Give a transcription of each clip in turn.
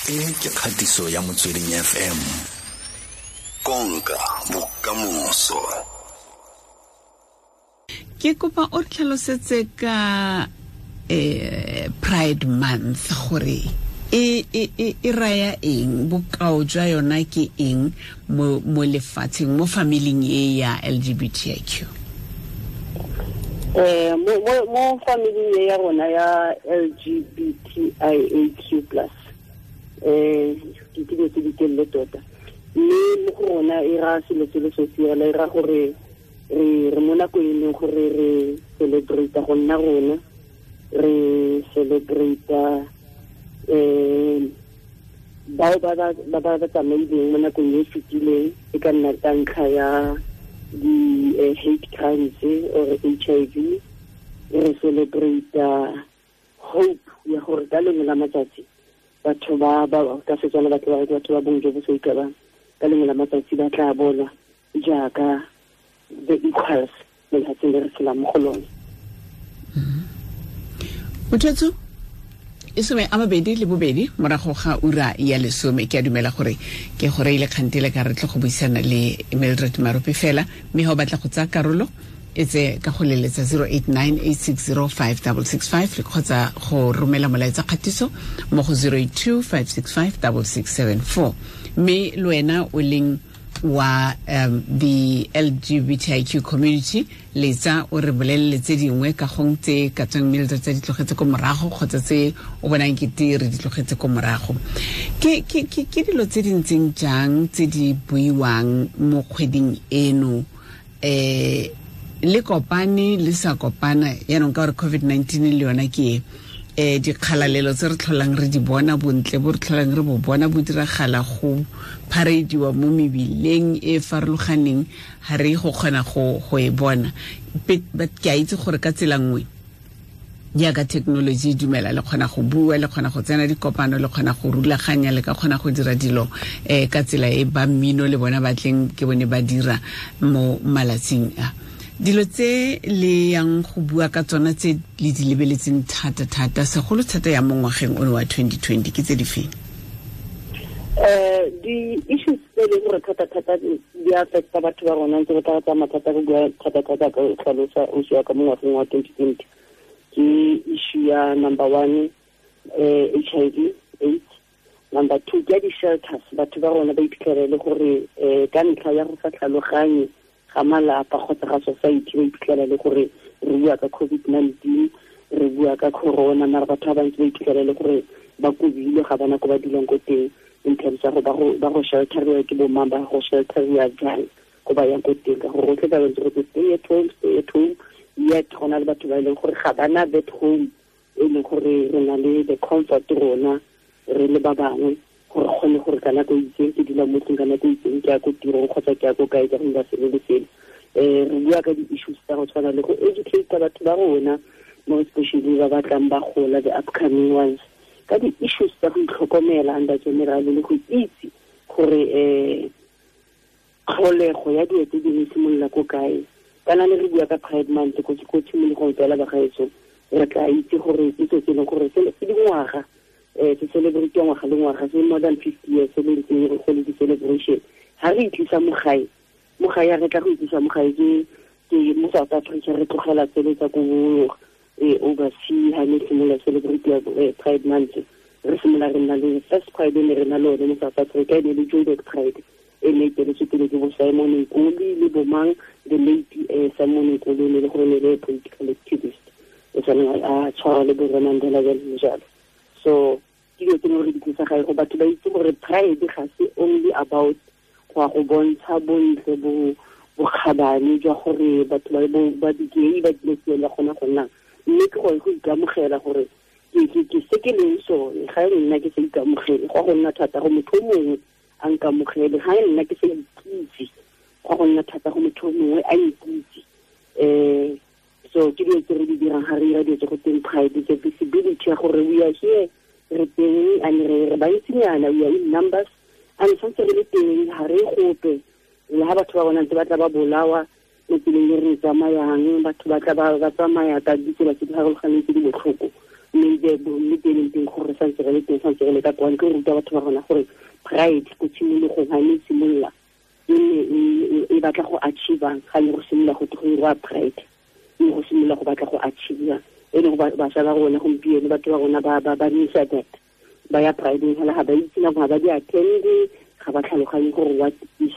E ke kgatiso ya Motsweding FM. Konka bokamoso. Ke kopa o re tlhalosetse ka Pride Month gore e raya eng, bokao jwa yona ke eng mo lefatsheng, mo familing e ya LGBTIQ? Mo familing e ya rona ya LGBTIAQ+, ke dilo tse di telele tota, mme mo go rona e ra selo se le sosi fela, e ra gore re mo nakong e leng gore re celebrate go nna rona, re celebrate bao ba tsamaileng mo nakong e fetileng, e ka nna ka ntlha ya di hate crimes or HIV. Re celebrate hope ya gore ka lengwe la matsatsi batho ba ka Setswana batho ba batho ba bong jo bo sa ikabang, ka lengwe la matsatsi ba tla bonwa jaaka the equals mo lefatsheng le re tshelang mo go lone. Mothetso e 22 morago ga ura ya 10. Ke a dumela gore ke gore ile kgantele ka re tle go buisana le Mildred Marope fela, mme ha o batla go tsaya karolo e tse ka go leletsa 0898605665 le kgotsa go romela molaetsa kgatiso mo go 0825656674. Mme le wena o leng wa the LGBTIQ community, letsa o re bolelele tse dingwe ka gong tse ka tswang Mildred tse di tlogetse ko morago kgotsa tse o bonang kete re di tlogetse ko morago. Ke dilo tse di ntseng jang tse di buiwang mo kgweding eno, le kopane le sa kopana yaanong ka gore COVID-19 le yona ke dikgalalelo tse re tlholang re di bona, bontle bo re tlholang re bo bona bo diragala go pharediwa mo mebileng e farologaneng, ga re go kgona go e bona. But ke a itse gore ka tsela nngwe jaaka technology e dumela, le kgona go bua, le kgona go tsena dikopano, le kgona go rulaganya, le ka kgona go dira dilo ka tsela e ba mmino le bona ba tleng ke bone ba dira mo malatsing a. Dilo tse le yang go bua ka tsona tse le di lebeletseng thata-thata, segolo thata ya mo ngwageng ono wa 2020 ke tse di feng? Di-issues tse e leng gore thata-thata di affecta batho ba rona, ntse re tla tsamaya thata go bua thata-thata ka tlhalosa o ya ka mo ngwageng wa 2020 ke issue ya number 1, HIV AIDS. Number 2 ke di-shelters. Batho ba rona ba iphitlhela le gore ka ntlha ya go sa tlhaloganye ga malapa kgotsa ga society, ba iphitlhela le gore re bua ka COVID-19, re bua ka corona, mara batho ba bantsi ba iphitlhela le gore ba kobile, ga bana ko ba dulang ko teng in terms ya go ba go shelteriwa ke bomang, ba go shelteriwa jang ko ba yang ko teng, ka gore rotlhe ba bantsi go stay at home, stay at home, yet go na le batho ba e leng gore ga bana that home e leng gore re na le the comfort rona re le ba bangwe gore kgone gore ka nako e itseng ke dula mo tlung, ka nako e itseng ke ya ko tirong kgotsa ke ya ko kae, ka go dira selo le selo. Re bua ka di-issues tsa go tshwana le go educate batho ba rona, more especially ba batlang ba gola, the upcoming ones, ka di-issues tsa go itlhokomela under general le go itse gore tlholego ya dilo tse dingwe simolola ko kae. Kana le re bua ka Pride Month ko tshimologong fela bagaetsho, re tla itse gore ke se se leng gore se dingwaga se celebrate ngwaga le ngwaga, se more than 50 years se le ntseng go le di-celebration. Ha re itlisa mo gae, re tla go itlisa mo gae ke mo South Africa, re tlogela tsele tsa ko overseas. Ha ne simolola celebrate Pride Month, re simolola re nna le first Pride ne re na le one mo South Africa, e ne le Joburg Pride, e ne e eteletswe pele ke bo Simon Nkoli le bomang, the late Simon Nkoli ne le gore ne le political activist, o tshwaneng a tshwara le bo Mandela jalo le jalo. So ke dilo tse gore di tlisa gae go batho ba itse gore pride ga se only about go ya go bontsha bontle bo bokgabane jwa gore batho ba di-gay ba dilo tsela gona go nna, mme ke gore go ikamogela gore ke se ke leng sone. Ga e nna ke sa ikamogele, go go nna thata go motho o mongwe a nkamogele. Ga e nna ke sa ikitse, go go nna thata go motho o mongwe a nkitse. So ke dilo tse re di dirang ga re dira dilo tse go teng pride, the visibility ya gore we are here, re teng, and re bantsinyana, we are in numbers, and santse re le teng, ga re gope. Le ha batho ba bona ntse ba tla ba bolawa mo tseleng e re tsamayang, batho ba tla ba tsamaya ka ditsela tse di farologaneng tse di botlhoko, Mme teng teng gore santse re le teng, santse re le ka kwano, ke ruta batho ba rona gore pride ko tshimologong ga ne simolola e ne e batla go achieve, ga ne go simolola go go pride, e go simolola go batla go achieve. E leng bašwa ba rona gompieno, batho ba rona ba misa that ba ya pride fela, ga ba itse nako, ga ba di attend, ga ba tlhaloganye gore what is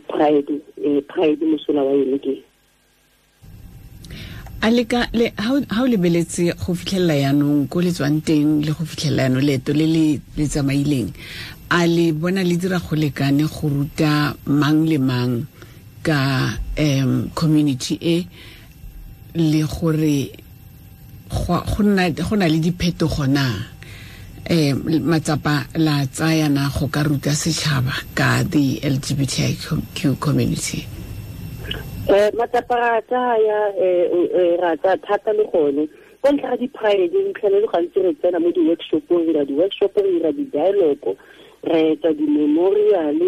pride, pride mosola wa yone ke. A le ka le ha o lebeletse go fitlhelela yanong ko le tswang teng le go fitlhelela yanong leeto le le tsamaileng, a le bona le dira go lekane go ruta mang le mang ka community e, le gore go na le diphetogo na, matsapa la tsaya na go ka ruta setšhaba ka the LGBTIQ community? Matsapa ra tsaya, ra tsaya thata le gone ko ntlha ga di-pride. Re tlhele le gantsi re tsena mo di-workshopong, re dira di-workshop, re dira di-dialogue, re etsa di-memorial,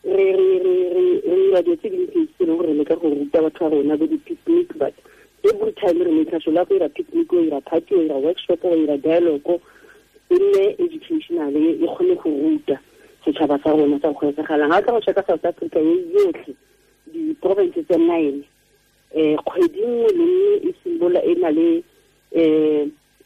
re dira dilo tse dintsi tse leng gore re leka go ruta batho ba rona bo di-picnic. But every time re make sure la go dira picnic, o dira party, o dira workshop, o dira dialogue, e nne educational, e kgone go ruta setšhaba sa rona sa go etsagalang. Ga o tla go checka South Africa e yotlhe, di-province tse 9, kgwedi nngwe le nngwe e simolola e na le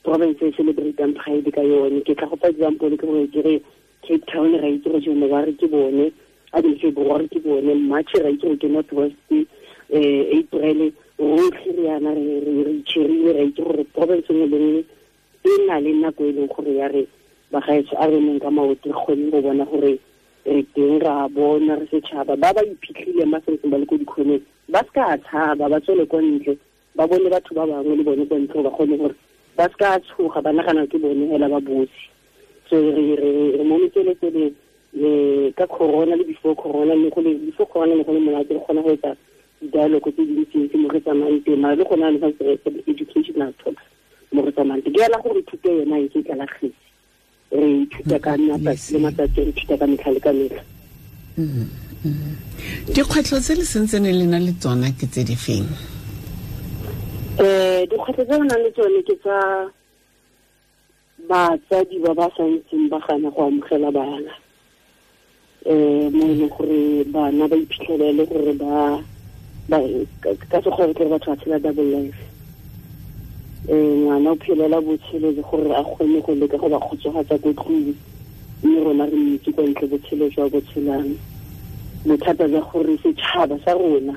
province e celebratang pride ka yone. Ke tla go fa example ke gore ke re Cape Town ra itse gore January ke bone, February ke bone, March ra itse gore ke North West, April rotlhe re yana re itšhirile, ra itse gore province nngwe le nngwe e na le nako e leng gore ya re bagaetsho a re neng ka maoto, re kgone go bona gore re teng, ra bona re setšhaba. Ba ba iphitlhileng ba santseng ba le ko dikgoneng ba se ka tshaba, ba tswele kwa ntle, ba bone batho ba bangwe le bone kwa ntle, ba kgone gore ba se ka tshoga, ba nagana ke bone hela ba bosi. So re mo metseletsele ka corona le before corona, le go le before corona le go le monate, re kgona go etsa di-dialogue tse dintsintsi mo re tsamayang teng, mara le gone le santse re etsa educational talks mo re tsamayang teng. Ke ela gore thuto yona e ke tlala kgetse, re ithuta ka matsatsi le matsatsi, re ithuta ka metlha le ka metlha. Dikgwetlho tse le sentsene le na le tsona ke tse di feng? Dikgwetlho tse re nang le tsone ke tsa batsadi ba ba santseng ba gana go amogela bana, mo e leng gore bana ba iphitlhelele gore ba ka sekgwa re batho ba tshela double life. Ngwana o phelela botshelo le gore a kgone go leka go ba kgotsofatsa ko tlung, mme rona re mmitse kwa ntle botshelo jwa botshelang. Bothata jwa gore setšhaba sa rona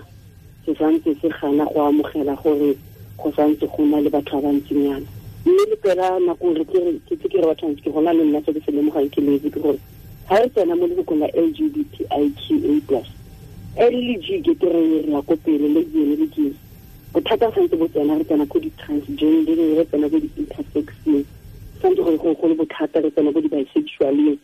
se santse se gana go amogela gore go santse go na le batho ba bantsinyana. Mme le pela nako re ke ke re batho ke gona le nna se ke se lemogang ke letse ke gore ga re tsena mo lefokong la LGBTIQA+, L le G ke re re ya ko pele, le G le G bothata santse bo tsena, re tsena ko di-transgender, re tsena ko di-intersexeng, santse gore go le bothata, re tsena ko di-bisexualeng,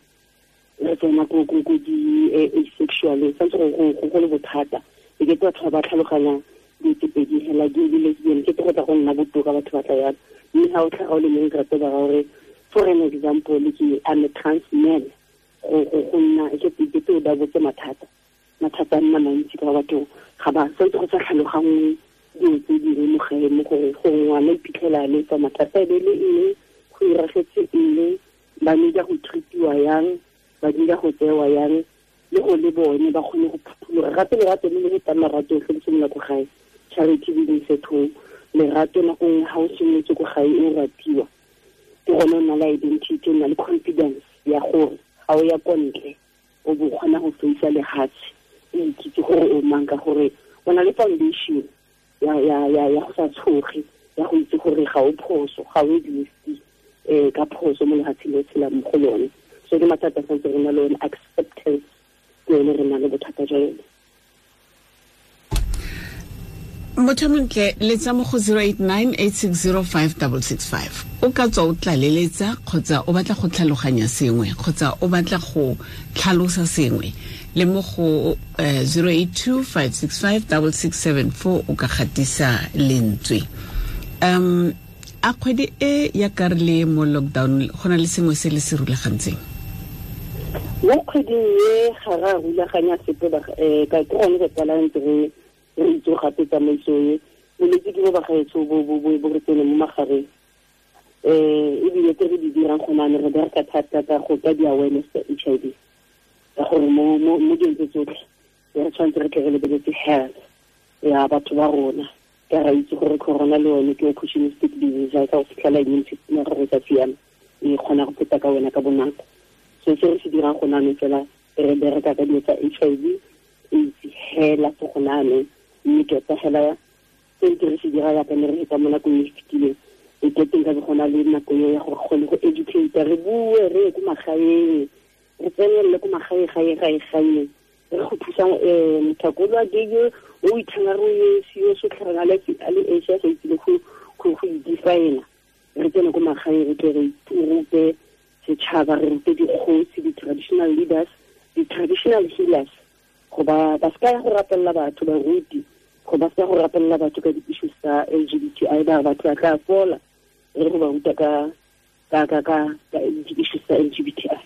re tsena ko di-asexualeng, santse go le bothata. E ke batho ba tlhaloganya dilo tse pedi hela, gay le lesbian, ke go tla go nna botoka batho ba tla yana. Mme ga o tlhaga o le mongwe rate ba gore for an example ke I'm a trans man, go nna ke ke o da botse mathata a nna mantsi ka batho ga ba santse go sa tlhaloganngwe dilo tse dingwe mo gae, mo gore go ngwana iphitlhela le tsa mathata e be le eng, go iragetse eng, ba need go treatiwa yang, ba need go tsewa yang, le go le bone ba kgone go phuthologa. Gape lerato le le fetang marato otlhe le simolola ko gae, charity begins at home. Lerato nako nngwe ga o simolotse ko gae o ratiwa, ke gone o na le identity, o na le confidence ya gore ga o ya ko ntle o bo kgona go feisa lehatshe, o ikitse gore o mang, ka gore o na le foundation ya go sa tshoge, ya go itse gore ga o phoso, ga o existe ka phoso mo lefatsheng le tshelang mo go lone. So ke mathata santse re na le one, acceptance ke yone re na le bothata jwa yone. Motho montle, letsa mo go 089 860 5665. O ka tswa o tlaleletsa kgotsa o batla go tlhaloganya sengwe kgotsa o batla go tlhalosa sengwe, le mo go 082 565 6674 o ka gatisa lentswe. A kgwedi e ya ka re le mo lockdown, go na le sengwe se le se rulagantseng? Mo kgweding e ga ra rulaganya sepe, ka ke gone go tsala ntse re itse gape tsamaiso e bolwetse ke bo bagaetsho bo re tsene mo magareng. Ebile tse re di dirang go nane re bereka thata ka go ka di-awareness tsa HIV, ka gore mo dilong tse tsotlhe re tshwanetse re tle re lebeletse health ya batho ba rona. Ka ra itse gore corona le yone ke opportunistic disease, ga e ka go fitlhela immune system ya gago e sa siama, e kgona go feta ka wena ka bonako. So se re se dirang go nane fela re bereka ka dilo tsa HIV AIDS hela fo go nane, mme tota hela se ke re se dira yaka ne re feta mo nakong e fetileng, e keteng ka go na le nako eo ya gore kgone go educate, re bue re ye ko magaeng, re tsenelele ko magae gae gae gae, re go thusa mothakolo a gay o ithanga re o sio sotlhang a le Asia go itse go go define. Re tsene ko magaeng re tle re rute setšhaba, re rute dikgosi, di-traditional leaders, di-traditional healers, go ba seka ya go rapelela batho, baruti go ba seka go rapelela batho ka di-issues tsa LGBTI, ba batho ba tla fola, re go ba ruta ka di-issues tsa LGBTI.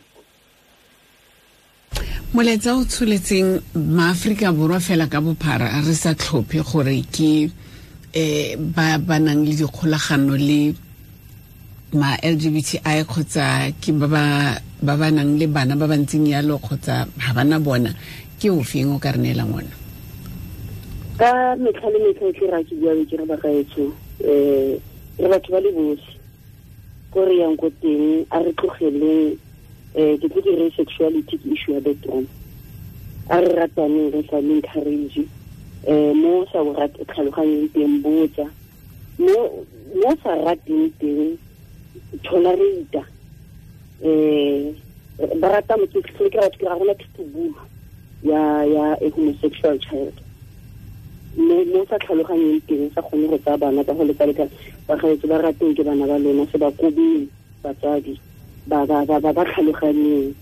Molaetsa o tsholetseng maAforika Borwa fela ka bophara, re sa tlhophe gore ke ba nang le dikgolagano le ma LGBTI kgotsa ke ba ba nang le bana ba ba ntseng yalo kgotsa ga bana bona, ke ofeng o ka re neelang ona? Ka metlha le metlha e tle ra ke bua ke re bagaetsho, re batho ba le botlhe ko re yang ko teng, a re tlogeleng ke tlo ke re sexuality ke issue ya bedroom, a re rataneng, re sa encourage mo sa o rate tlhaloganyeng teng, botsa mo sa rateng teng, tolerate. Ba rata motho ke batho ke ra rona thutobulu ya a homosexual child, mo sa tlhaloganyeng teng, sa kgone go tsaya bana ka go lekalekana. Bagaetsho ba rateng ke bana ba lona, se ba kobeng batsadi, ba tlhaloganyeng,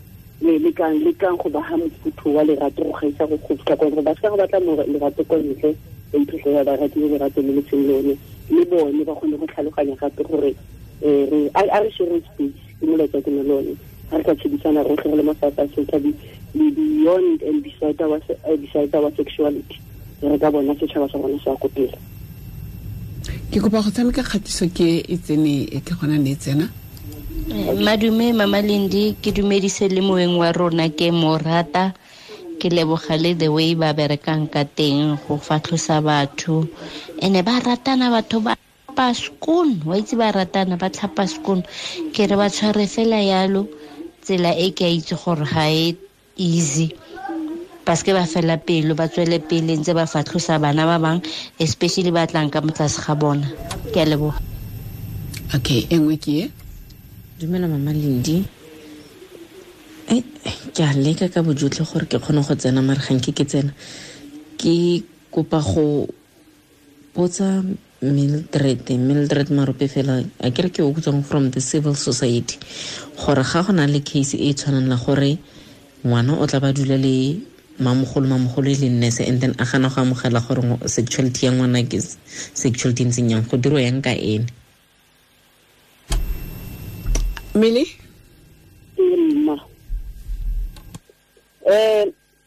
le lekang go ba ha mofutho wa lerato go gaisa go fitlha kwa gore ba seka go batla lerato kwa ntle, ba iphitlhela ba ratile lerato le le seng lone, le bone ba kgone go tlhaloganya gape gore a re share space, ke molaetsa ke ne le one. Ga re ka tshedisana rotlhe re le mo South Africa, le beyond and beside our sexuality, re ka bona setšhaba sa rona se ya ko pele. Ke kopa go tshameka kgatiso ke e tsene ke gona ne e tsena. Madume Mama Lindi, ke dumedise le moeng wa rona, ke mo rata, ke leboga le the way ba berekang ka teng go fatlhosa batho, ene ba ratana batho ba tlhapa skoon, wa itse ba ratana ba tlhapa skoon, ke re ba tshware fela yalo tsela e ke a itse gore ga e easy, paske ba fela pelo, ba tswele pele ntse ba fatlhosa bana ba bang, especially ba tlang ka motlase ga bona. Ke a leboga. Okay, e nngwe ke e. Dumela Mama Lindi. Ke a leka ka bojotlhe gore ke kgone go tsena, mare ga nke ke tsena. Ke kopa go botsa Mildred Marope fela, a kere ke o tswang from the civil society, gore ga go na le case e tshwanang la gore ngwana o tla ba dula le mamogolo e le nurse, and then a gana go amogela gore sexuality ya ngwana ke sexuality ntseng yang, go dirwa yang ka ene? Mele? Mma.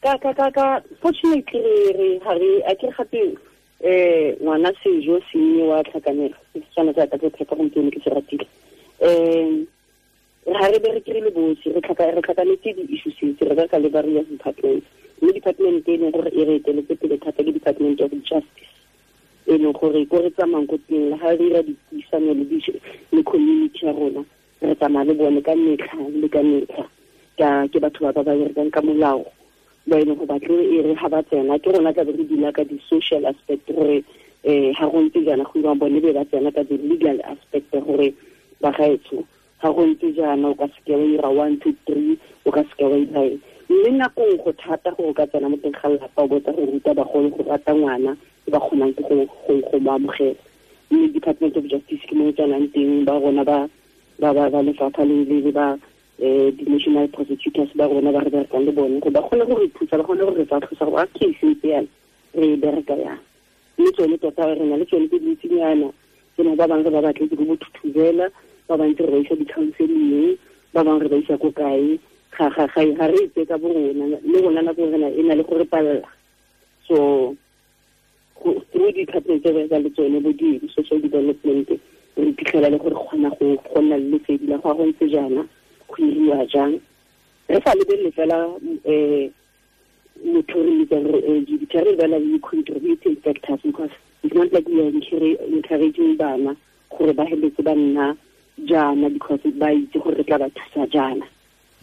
Ka fortunately re ha re a ke gape ngwana sejo se wa tlhakanelo, se tshwana tsa ka tse gompieno ke se ratile. Re ha re bereke re le botlhe, re tlhakanetse di-issues tse, re bereka le various departments, mme department e leng gore e re eteletse pele thata ke Department of Justice, e leng gore ko re tsamayang ko teng le ha re dira dipuisano le community ya rona, re tsamaya le bone ka metlha le ka metlha, ke batho ba ba berekang ka molao, ba e leng go batle e re ha ba tsena ke rona tla be re dula ka di-social aspect gore ha go ntse jaana go irang, bone be ba tsena ka di-legal aspect gore bagaetsho ga go ntse jaana o ka seke wa ira 1 2 3, o ka seke wa ira eng. Mme nakong go thata gore o ka tsena mo teng ga lelapa o botsa go ruta bagolo go rata ngwana ba kgonang ke go mo amogela. Mme Department of Justice ke mo e tsenang teng, ba rona ba lefapha le ba di-national prosecutors ba rona ba re berekang le bone, gore ba kgone go re thusa, ba kgone go re fatlhosa gore a case ntse yana re e bereka yang. Mme tsone tota re na le tsone tse dintsinyana, tsene ba bangwe re ba batletse ko bothuthubela, ba bantse re ba isa di-counseling, ba bangwe re ba isa ko kae, ga re itse ka bo rona, le rona nako rena e na le go re palela. So through di-department tse re le tsone bo di-social development, Re iphitlhela le gore kgona go nna le lesedi la go ntse jaana, go iriwa jang. Re sa lebelele fela motho re bitsang re LGBT, re lebelela le contributing factors, because it's not like we are encouraging bana gore ba heletse ba nna jaana because ba itse gore re tla ba thusa jaana.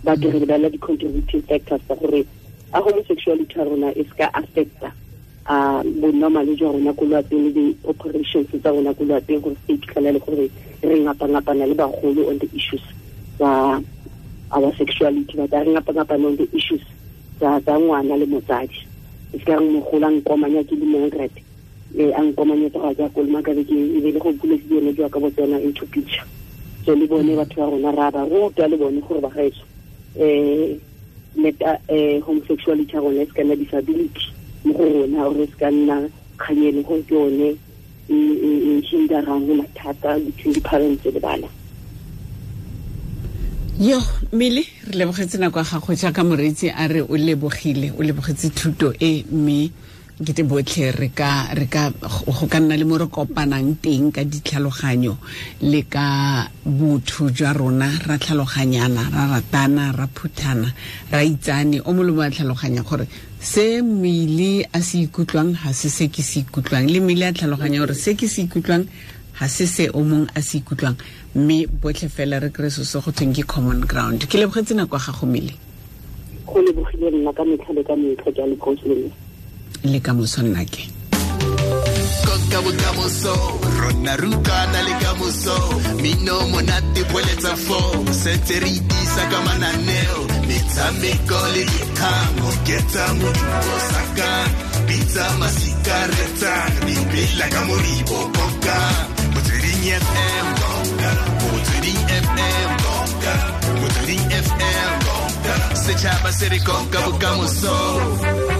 But re lebelela di-contributing factors tsa gore a homosexuality ya rona e se ka affecta bonormale jwa rona ko lwapeng le di-operations tsa rona ko lwapeng, gore se iphitlhela le gore re ngapa-ngapana le bagolo on the issues tsa our sexuality, but re ngapa-ngapana on the issues tsa ngwana le motsadi. E se ka re mogolo a nkomanya ke le Mildred, a nkomanyetsa go ya ke kolomaka be ke e be le go buletse yone jwa ka bo tsena into picture. So le bone batho ba rona ra ba ruta le bone gore ba gaetsho let homosexuality ya rona e se ka nna disability mo go rona, or e se ka nna kganyelo gore ke yone e hinderang mathata between di-parents le bana. Yo, Mmele, re lebogetse nako ya gago jaaka moreetsi a re o lebogile, o lebogetse thuto e, mme ke te botlhe re ka go ka nna le mo re kopanang teng ka ditlhaloganyo le ka botho jwa rona, ra tlhaloganyana, ra ratana, ra phuthana, ra itsane. O molomo a tlhaloganya gore se Mmele a se ikutlwang ga se se ke se ikutlwang, le Mmele a tlhaloganya gore se ke se ikutlwang ga se se o mong a se ikutlwang, mme botlhe fela re kry se se go thweng ke common ground. Ke lebogetse nako ya gago, Mmele. Go lebogile nna ka metlha le ka metlha, ke a le le ka moso nnake. Konka bokamoso, rona rutana le kamoso, mino monate boeletsa fo, sentse re itisa ka mananeo, metshameko le dikgang, oketsa modumo sakang, bitsa masika retsang, dipela ka moribo konka, Motsweding FM konka, Motsweding FM konka, Motsweding FM konka, setšhaba se re konka bokamoso.